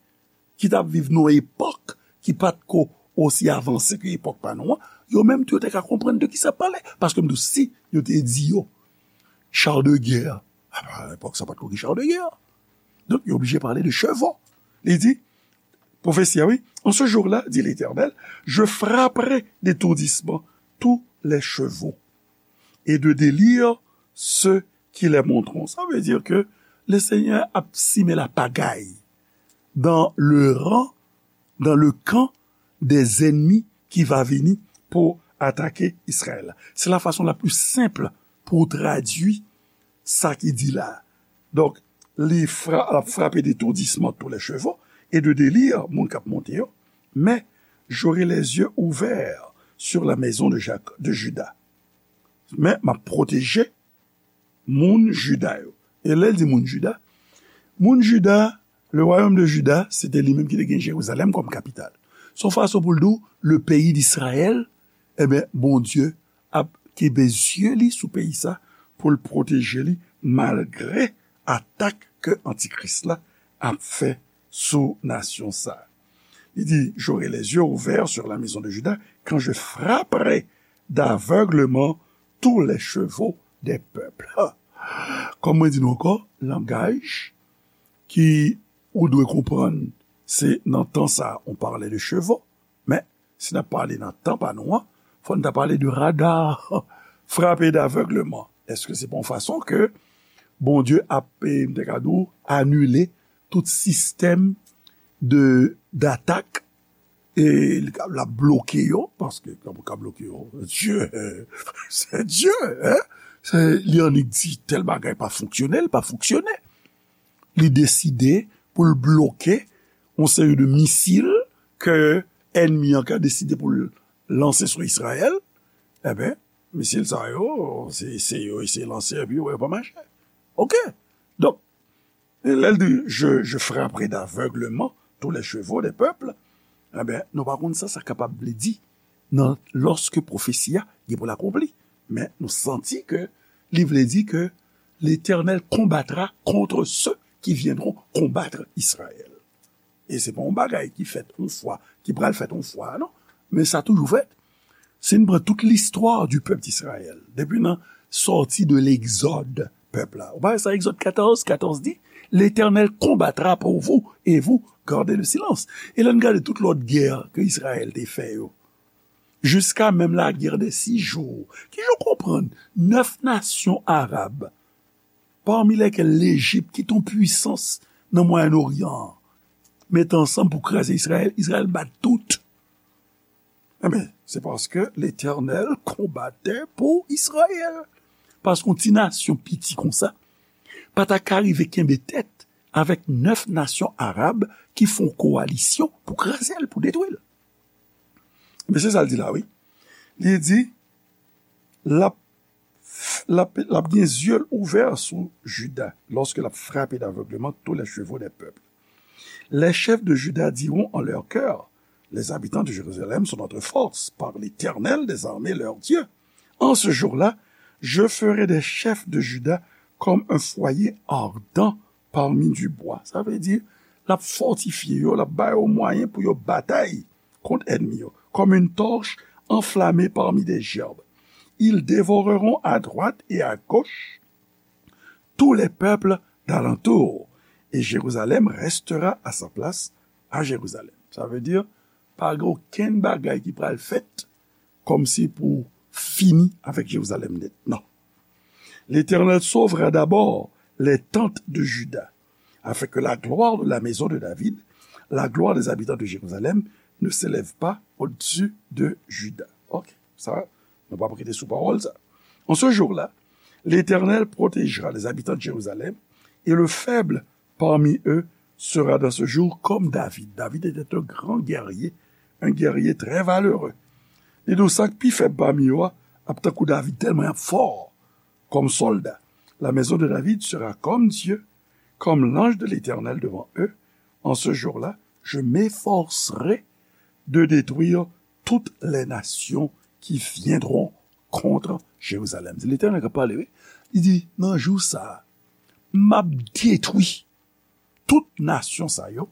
ki t ap viv nan epòk ki pa t ko osi avanse ke epòk pa nou an, yo menm tou yo te ka konprann de ki sa ap pale. Paske m di w, si yo te di yo, char de guerre, a, pa epòk sa pa t ko gen char de guerre. Donk, yo oblije pale de chevaux. Li di, pwofesi a, wi, en ce jour-là, dit l'Éternel, je frapperai d'étourdissement tous les chevaux et de délire ceux qui les monteront. Sa vle di ke le Senyè ap simen lapagay dans le rang, dans le camp des ennemis ki va vini pou atake Izrayèl la. Se la fason la pli senp pou w tradui sa ki di la. Donk, li fra-, ap frape d'étourdissement tous les chevaux et de délire moun k ap monte yo, mais j'aurai les yeux ouverts sur la maison de Jac-, de Juda. Men m ap pwoteje moun Jida yo. E lè l di moun Jida, moun Jida, le royaume de Juda, se te li menm ki te gen Jerizalèm kòm kapital. Se yon fason pou l di w, le pays d'Israël, ebyen, Bondye ap kenbe zye li sou peyi sa pou l pwoteje li malgre atak ke Antikris la ap fè sou nasyon sa. Li di, j'aurai les yeux ouverts sur la maison de Juda quand je frapperai d'aveuglement tous les chevaux des peuples. Kòm mwen di nou ankò, langaj ki ou dwe konprann, se nan tan sa a, on parlait de chevaux, men si n ap pale nan tan pa nou an, fò n ta pale de radar frappé d'aveuglement. Èske se pa yon fason ke Bondye ap, eh, m te ka di w, anile tout sistèm de, d'atak, e l ap bloke yo, paske kòman w ka bloke yo? Dye, se Dye, hein? Se, li annik di tèl bagay pa fonksyone, l pa fonksyone. Li deside pou l bloke yon seri de misil ke ènmi an ka deside pou l lanse sou Izrayèl. Enben, misil sa yo, se, se yo eseye lanse, epi yo wè yo pa mache. Oke. Donk, e lè l di, je, je frapperai d'aveuglement tous les chevaux des peuples, enben, nou pa konn sa sa kapab vle di nan lòske pwofesi a gen pou l akonpli. Men nou santi ke li vle di ke Letènèl konbatra contre ceux qui viendront combattre Israël. E se pa yon bagay ki fèt yon fwa, ki pral fèt yon fwa, non. Men sa toujou fèt. Si n pran tout listwa du pèp Izrayèl, depi nan sòti de Legzòd, pèp la. Ou pa wè sa, Egzòd katòz, katòz di, L'Éternel combattra pour vous et vous gardez le silence. E lè n gade tout lòt gè ke Izrayèl te fè yo, jiska menm la guerre des six jours, ki jan w konprann nèf nasyon arab, pami lèkèl Lejip, ki te yon pwisans nan Mwayen Oryan an, mete ansanm pou kraze Izrayèl, Izrayèl bat tout. Enben, se paske Letènèl konbate pou Izrayèl. Paske yon ti nasyon piti konsa pa ta ka rive kenbe tèt avèk nèf nasyon arab ki fè yon kowalisyon pou kraze l, pou detwi l. Men se sa l di la, wi. Li di, l ap, l ap, l ap gen zye l ouvè sou Jida, lorsque l ap frape d'avègleman tous les chevaux des peuples. Les chefs de Juda diront en leur cœur, les habitants de Jérusalem sont notre force, par l'Éternel des armées leur Dieu. En ce jour-là, je ferai des chefs de Juda comme un foyer ardent parmi du bois. Sa vle di, l ap fòtifye yo, l ap ba yo mwayen pou yo batay kont ènmi yo, comme une torche enflammée parmi des gerbes. Ils dévoreront à droite et à gauche tous les peuples d'alentour, et Jérusalem restera à sa place à Jérusalem. Sa vle di, pa gen okenn bagay ki pral fèt kòmsi pou fini avèk Jerizalèm nèt. Non. L'Éternel sauvera d'abord les tentes de Juda, afin que la gloire de la maison de David, la gloire des habitants de Jérusalem, ne s'élève pas au-dessus de Juda. Ok, sa, nou pa prete sou pawòl sa. En ce jour-là, l'Éternel protégera les habitants de Jérusalem, et le faible parmi eux sera dans ce jour comme David. David était un grand guerrier, un guerrier très valeureux. Li di w sa k pi fèb pami yo a ap tankou David, tèlman y ap fò kòm sòlda. La maison de David sera comme Dieu, comme l'ange de l'Éternel devant eux. En ce jour-là, je m'efforcerai de détruire toutes les nations qui viendront contre Jérusalem. Se Letènèl k ap pale, wi. Li di, nan jou sa a, m ap detwi tout nasyon sa yo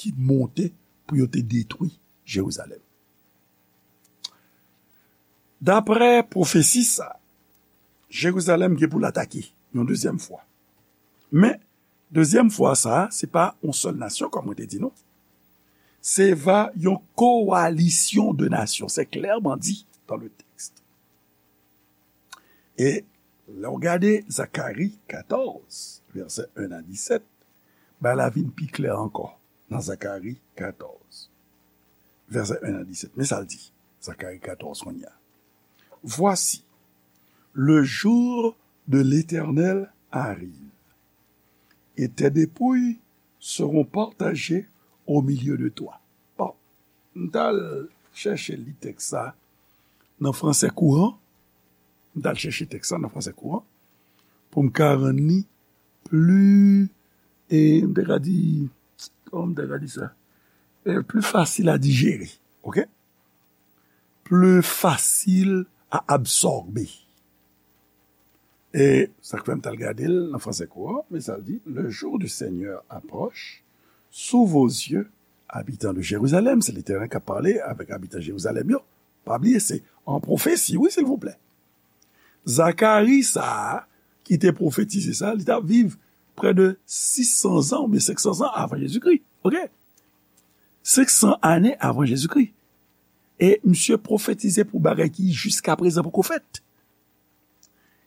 ki monte pou yo te detwi Jerizalèm. Daprè pwofesi sa, Jerizalèm gen pou l atake yon dezyèm fwa. Men, dezyèm fwa sa a, se pa yon sèl nasyon, kòm mwen te di nou. Se va yon kowalisyon de nasyon. C'est clairement dit dans le texte. E lè w gade Zakari katòz, vèsè en a disèt, bagay la vin pi klè ankò nan Zakari katòz, vèsè en a disèt. Men sa l di, Zakari katòz kounye a. Voici, le jour de l'Éternel arrive, et tes dépouilles seront partagées au milieu de toi. Bon, m t al chèche li tèks sa nan fransè kouran. M t al chèche tèks sa nan fransè kouran pou m ka rann li pli, e m te ka di, kòman m te ka di sa? E, pli fasil a dijere, oke? Pli fasil a absòbe. E sa k fè m t al gade l nan fransè kouran, men sa l di, le jour du Seigneur approche, sous vos yeux, habitants de Jérusalem, se Letènèl k ap pale avèk abitan Jerizalèm yo. Pa bliye, se an pwofesi, wi, silvouplè. Zakari sa a, ki te pwofetize sa, li t ap viv prè de sis san zan oubyen senk san zan avan Jezikri. Oke? Senk san ane avan Jezikri. E misye pwofetize pou bagay ki jiska prezan poko fèt.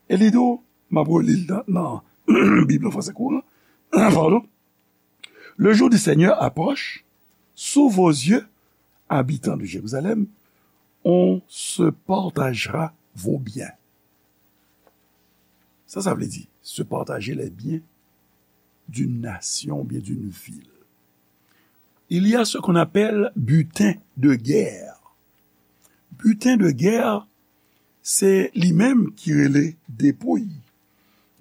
E li di w, m ap reli l nan, nan Bib an fransè kouran. Pardon. Le jour du Seigneur approche. Sous vos yeux, habitants de Jérusalem, on se partagera vos biens. Sa, sa vle di, se partager les biens d'une nation ou bien d'une ville. Il y a ce qu'on appelle butin de guerre. Butin de guerre, se li menm ki rele depouy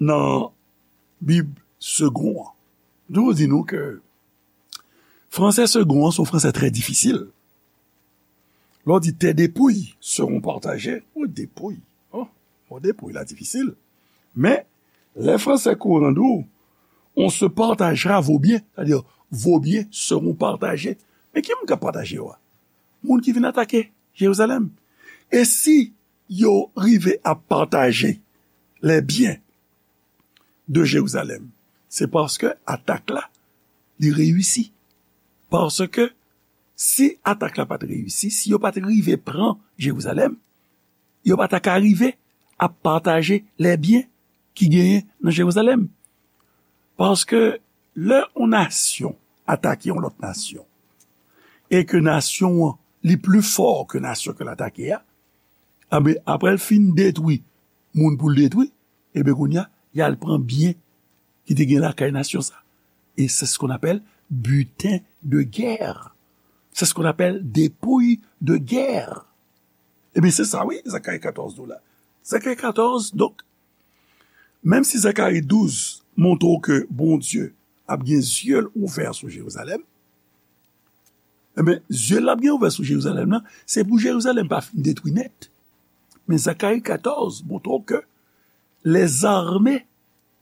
nan Bib segon an. Donk, di nou ke fransè segon an se yon fransè trè difisil. Lè w di tes dépouilles seront partagées, ou depouy. Oh, mo depouy la difisil. Men, lè fransè kouran di w, on se partagera vos biens, sa vle di, vos biens seront partagés. Men ki moun k ap pataje yo a? Moun ki vin atake Jerizalèm. E si yo rive ap pataje les biens de Jérusalem, se paske atak la, li reyisi. Paske si atak la pa t reyisi, si yo pa t rive pran Jerizalèm, yo pa ta ka rive ap pataje les biens ki genyen nan Jerizalèm. Paske lè yon nasyon atake yon lòt nasyon, e ke nasyon an li pli fò ke nasyon ke l atake a, enben, apre l fin detwi moun pou l detwi, enben, kounye a, y al pran byen ki te gen lakay nasyon sa. Et c'est ce qu'on appelle butin de guerre. C'est ce qu'on appelle dépouille de guerre. Ebyen, se sa, wi, Zakari katòz di w la. Zakari katòz, donk, menm si Zakari douz montre w ke Bondye ap gen zye l ouvè sou Jerizalèm, enben, zye l ap gen ouvè sou Jerizalèm nan, se pou Jerizalèm pa fin detwi nèt. Men Zakari katòz montre w ke les armées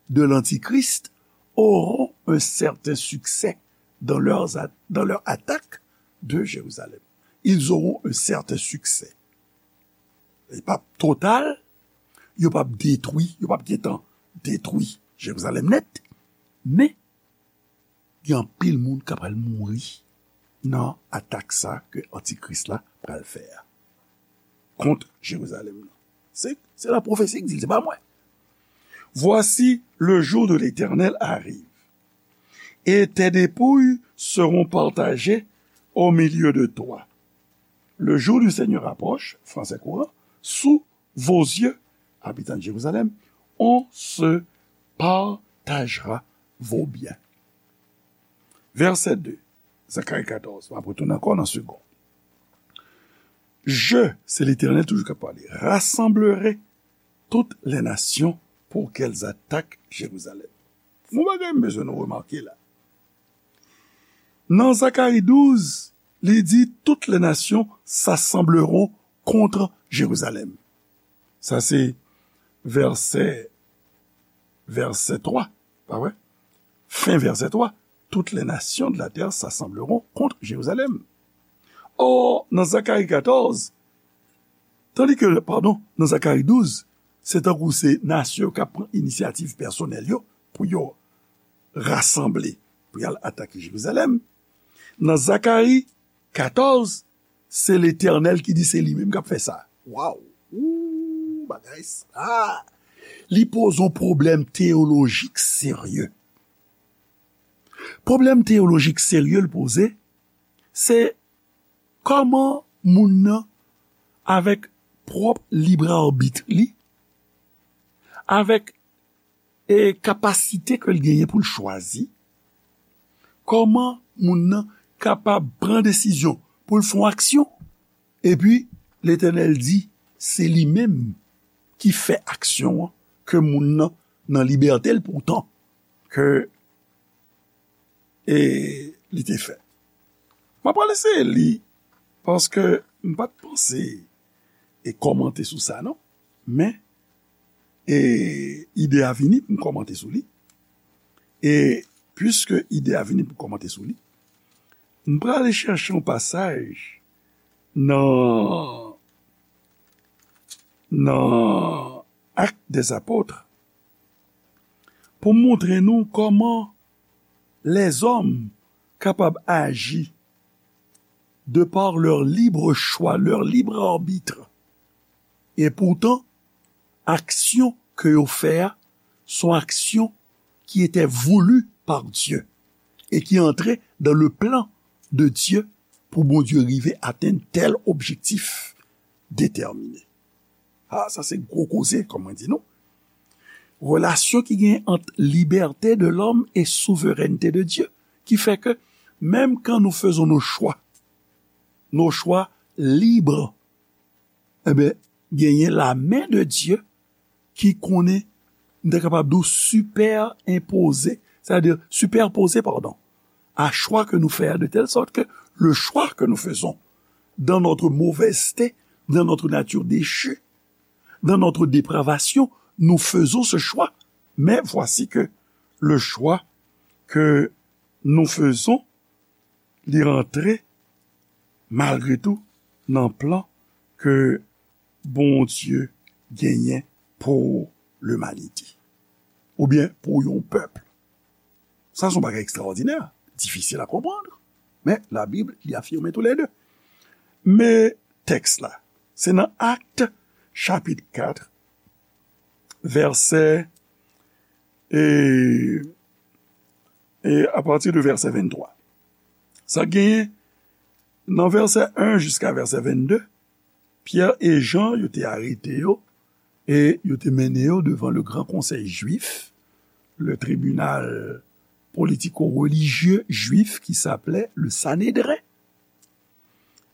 de l'Antichrist auront un certain succès dans leurs a-, dans leur attaque de Jérusalem. Ils auront un certain succès. Li p ap total, yo p ap detwi, yo p ap gentan detwi Jerizalèm nèt, men gen anpil moun k ap pral mouri nan atak sa ke Antikris la pral fè a kont Jerizalèm nan. Se, se la pwofesi ki di l, se pa mwen. Voici, le jour de l'Éternel arrive, et tes dépouilles seront partagées au milieu de toi. Le jour du Seigneur approche, fransè kouran, sous vos yeux, habitants de Jérusalem, on se partagera vos biens. Vèsè de, Zakari katòz, m ap retounen ankò nan segonn. Je, se Letènèl toujou k ap pale, rassemblerai toutes les nations pour qu'elles attaquent Jérusalem. Yon bagay m bezwen nou remake la. Nan Zakari douz, li di, toutes les nations s'assembleront contre Jérusalem. Sa se vèsè, vèsè twa, pa vre? Fen vèsè twa. Toutes les nations de la terre s'assembleront contre Jérusalem. Or, nan Zakari katòz, tandi ke, padon, nan Zakari douz, se tankou se nasyon yo k ap pran inisyativ pèsonèl yo pou yo rasanble, pou y al atake Jerizalèm. Nan Zakari katòz, se Letènèl ki di se li menm k ap fè sa. Waw! Ou, bagay sa! Li poze yon pwoblèm teyolojik serye. Pwoblèm teyolojik serye l poze, se kòman moun nan, avèk pwòp lib arbit li, avèk, e, kapasite ke l genyen pou l chwazi, kòman moun nan kapab pran desizyon pou l fè yon aksyon, epi Letènèl di, se li menm ki fè aksyon an, ke moun nan nan libète l poutan ke, e, li te fè. M ap pral eseye li, paske m pa t panse e kòmante sou sa, non. Men, e, ide a vini pou m kòmante sou li. E, piske ide a vini pou m kòmante sou li, m prale chèche yon pasaj nan nan Actes des Apôtres pou montre nou kòman lèzòm kapab aji de par leur libre choix, leur libre arbitre. E poutan, aksyon ke yo fè a, se yon aksyon ki ete voulu par Dieu e ki antre dans le plan de Dieu pou Bondye rive atenn tèl objektif detèmine. Ah, sa se gwo koze, kòm mwen di nou. Relasyon ki gen ant liberté de l'homme et souveraineté de Dieu, ki fè ke menm kan nou faisons nos choix, nos choix libres, enben, genyen la main de Dieu ki konnen, m te kapab di w, supèenpoze, c'est-à-dire superposé, pardon, à choix que nous faisons, de telle sorte que le choix que nous faisons dans notre mauvaiseté, dans notre nature déchue, dans notre dépravation, nous faisons ce choix. Mais voici que le choix que nous faisons, li rantre malgre tou nan plan ke Bondye genyen pou limanite, oubyen pou yon pèp. Sa se yon bagay ekstraòdinè, difisil a konprann, men Labib, li afime toulède. Men tèks la, se nan Actes, chapit kat, vèsè, e, e apati de vèsè venntwa. Sa genyen nan vèsè en jiska vèsè vennde, Pyè e Jan, yo te arete yo e yo te mennen yo devan le gran konsèy jwif, le tribinal politico-religieux juif qui s'appelait le Sanhédrin.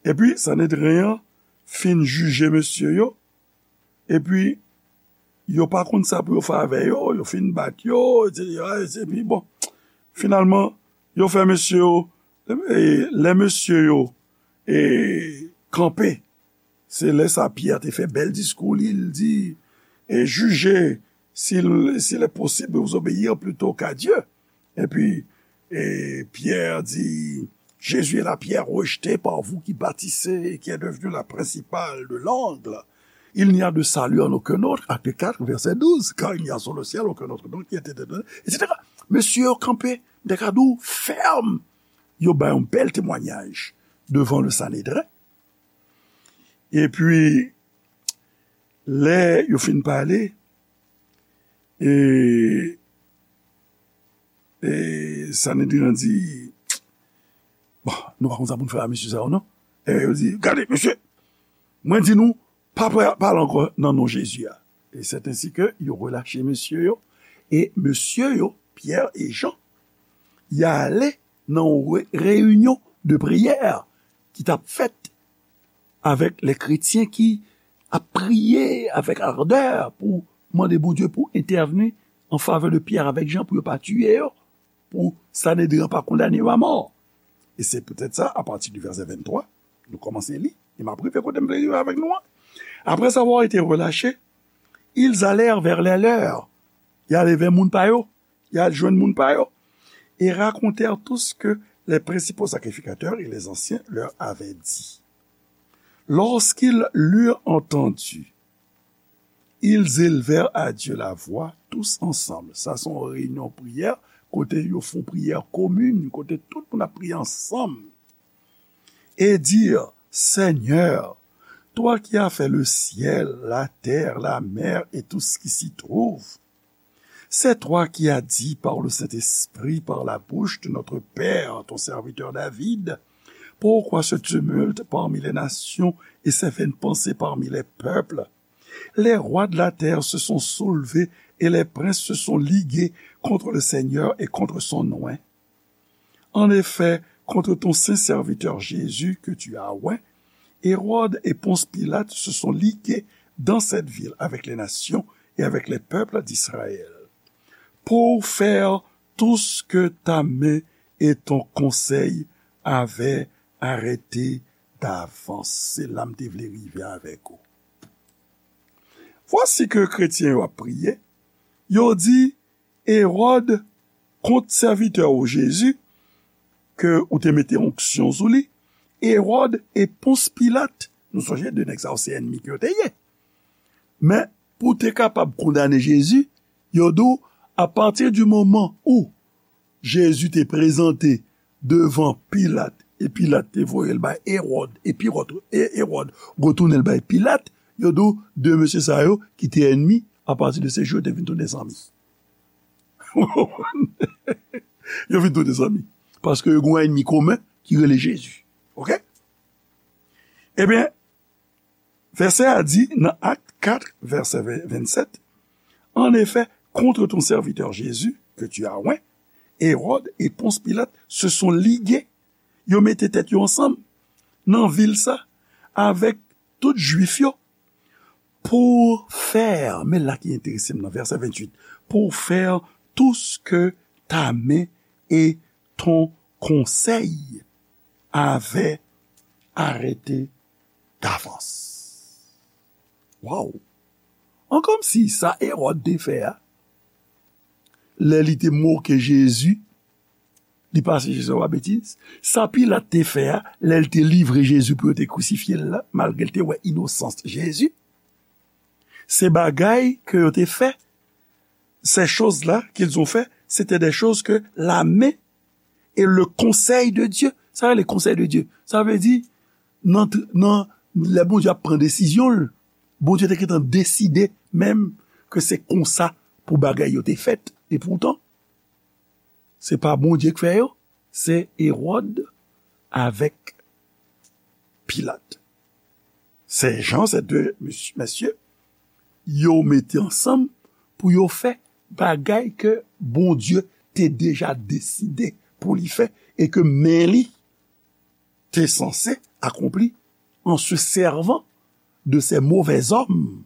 Epi Sanedren an fin jije mesye yo, epi yo pa konn sa pou yo fè avè yo, yo fin bat yo, etsetera, epi bon, finalman, yo fè mesye yo, e, lè mesye yo, e, kanpe, se lè sa Pyè te fè bèl diskou li, li di, e, jije, s'il, s'il est possible de vous obéir plutôt qu'à Dieu. Epi, e, Pyè di, Jésus est la pierre rejetée par vous qui bâtissez et qui est devenue la principale de l'angle. Il n'y a de salut en aucun autre, Acte quatre, verset douze, car il n'y a sous le ciel aucun autre nom qui ait été donné, etsetera. Mesye yo kanpe, m te ka di w, fèm. Yo bay yon bèl temwayaj devan le Sanedren. Epi, lè yo fin pale, e, e Sanedren an di, bon, nou pa konn sa pou n fè a mesye sa yo, non? E yo di, gade, mesye, mwen di nou, pa pra-, pale ankò nan non Jezi a. E c'est ainsi que yo relache mesye yo, e mesye yo, Pyè e Jan, y ale nan yon re-, reyinyon de priyè ki t ap fèt avèk lè kretyen ki ap priye avèk ardè pou mande Bondye pou entèvni an favè de Pyè avèk Jan pou yo pa tiye yo, pou Sanedren an pa kondane yo a mò. E se poutèt sa, apati di vèsè venntwa, nou kòmanse li, e m ap rive kote m vle rive avèk nou an. Après avoir été relâchés, ils allèrent vers les leurs. Y ale vè moun pa yo. Y al jwenn moun pa yo. Et racontèrent tout ce que les principaux sacrificateurs et les anciens leur avaient dit. Lorsqu'ils l'eurent entendu, ils élevèrent à Dieu la voix tous ensemble. Sa se yon reyinyon priyè, kote yo fè yon priyè komin, kote tout moun ap priye ansanm. Et dirent, Seigneur, toi qui as fait le ciel, la terre, la mer et tout ce qui s'y trouve, c'est toi qui as dit par le Saint-Esprit, par la bouche de notre père, ton serviteur David, pourquoi ce tumulte parmi les nations et ces vaines pensées parmi les peuples? Les rois de la terre se sont soulevés et les princes se sont ligués contre le Seigneur et contre son oint. En effet, contre ton saint serviteur Jésus que tu as oint, Hérode et Ponce Pilate se sont ligués dans cette ville avec les nations et avec les peuples d'Israël, pour faire tout ce que ta main et ton conseil avaient arrêté d'avance. Se la m te vle rive avèk ou. Vwasi ke kretyen yo ap priye, yo di, Ewòd, kont sèvitè w Jezi, ke ou te mete onksyon sou li, Ewòd e Pons Pilat, nou sonje de nèg sa yo se ènmi ke yo te ye. Men, pou te kapab kondane Jezi, yo di w, apati di moman ou Jezi te prezante devan Pilat, e Pilat te voye l bay Ewòd, e Piwòt, e Ewòd retounen l bay Pilat, yo di w, de mesye sa yo ki te ènmi, apati de se jou yo te vin tounen zanmi. Yo vin tounen zanmi. Paske yo gen yon ènmi komen ki rele Jezi. Oke? Ebyen, vèsè a di nan Ak kat, vèsè ven, vennsèt, En effet, contre ton serviteur Jésus, que tu as oint, Hérode et Ponce Pilate se sont ligués. Yo mete tèt yo ansanm nan vil sa avèk tout Jwif yo pour faire, men la ki enterese m nan vèsè ventuit, pour faire tout ce que ta main et ton conseil avaient arrêté d'avance. Waw! An kòmsi sa Ewòd te fè a, lè li te moke Jezi, li pase Jezi anba betiz. Sa Pilat te fè a, lè l te livre Jezi pou yo te krisifye l la, malgre l te wè inosans Jezi. Se bagay ke yo te fè, ces choses-là qu'ils ont fait, c'était des choses que la main et le conseil de Dieu. Sa vle konsèy de Dye. Sa vle di, nan, nan, lè Bondye ap pran desizyon l, Bondye te gentan deside menm ke se konsa pou bagay yo te fèt. E poutan, se pa Bondye k fè yo, se Ewòd avèk Pilat. Ces gens, ces deux mes- messieurs, yo mete ansanm pou yo fè bagay ke Bondye te deja deside pou li fè e ke men li te sanse akonpli en se servant de ces mauvais hommes.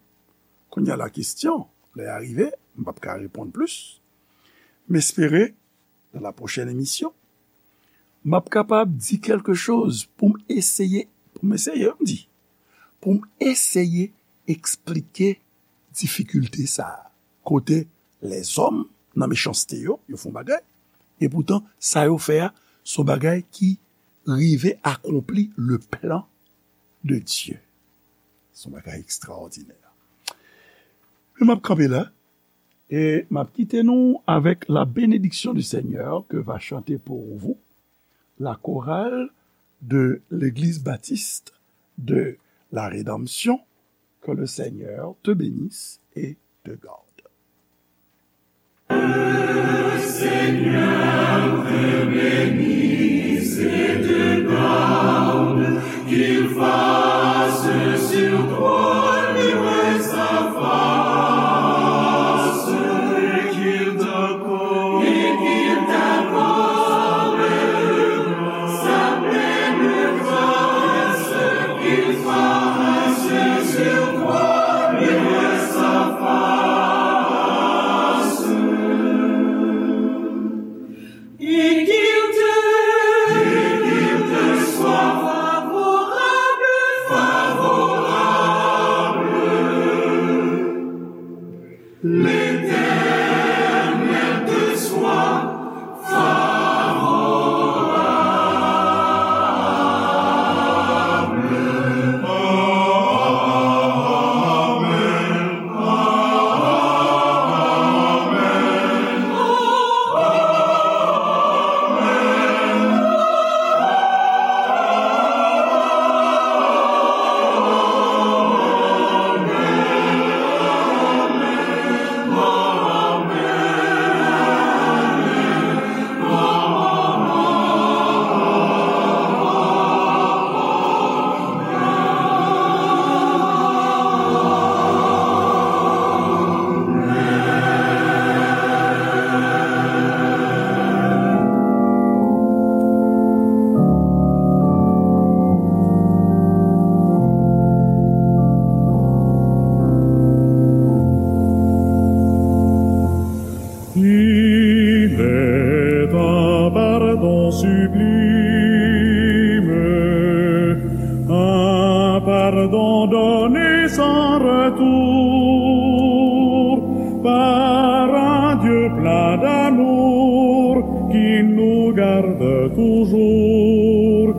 Kounye a la kesyon, lè a rive, m p ap ka reponn plis. M espere, dans la prochaine émission, m ap kapab di kèlke choz pou m eseye, pou m eseye, m di, pou m eseye eksplike difikilte sa a. Kote lèzòm nan mechanste yo, yo fè yon bagay, e poutan sa yo fè a, se yon bagay ki rive akonpli le plan de Dieu. Se yon bagay ekstraòdinè. Men m ap kanpe la, e m ap kite nou avec la bénédiction du Seigneur que va chanter pour vous la chorale de l'Église baptiste de la Rédemption. Que le Seigneur te bénisse et te garde. Seigneur te bénisse et te garde, qu'il fasse sur toi luire sa face, et qu'il t'accorde, et qu'il t'accorde sa pleine grâce, qu'il fasse sur toi luire sa face. Et qu'il te, et qu'il te soit favorable, favorable. L'Éternel te soit favorable. Amen. Il est un pardon sublime, un pardon donné sans retour par un Dieu plein d'amour qui nous garde toujours.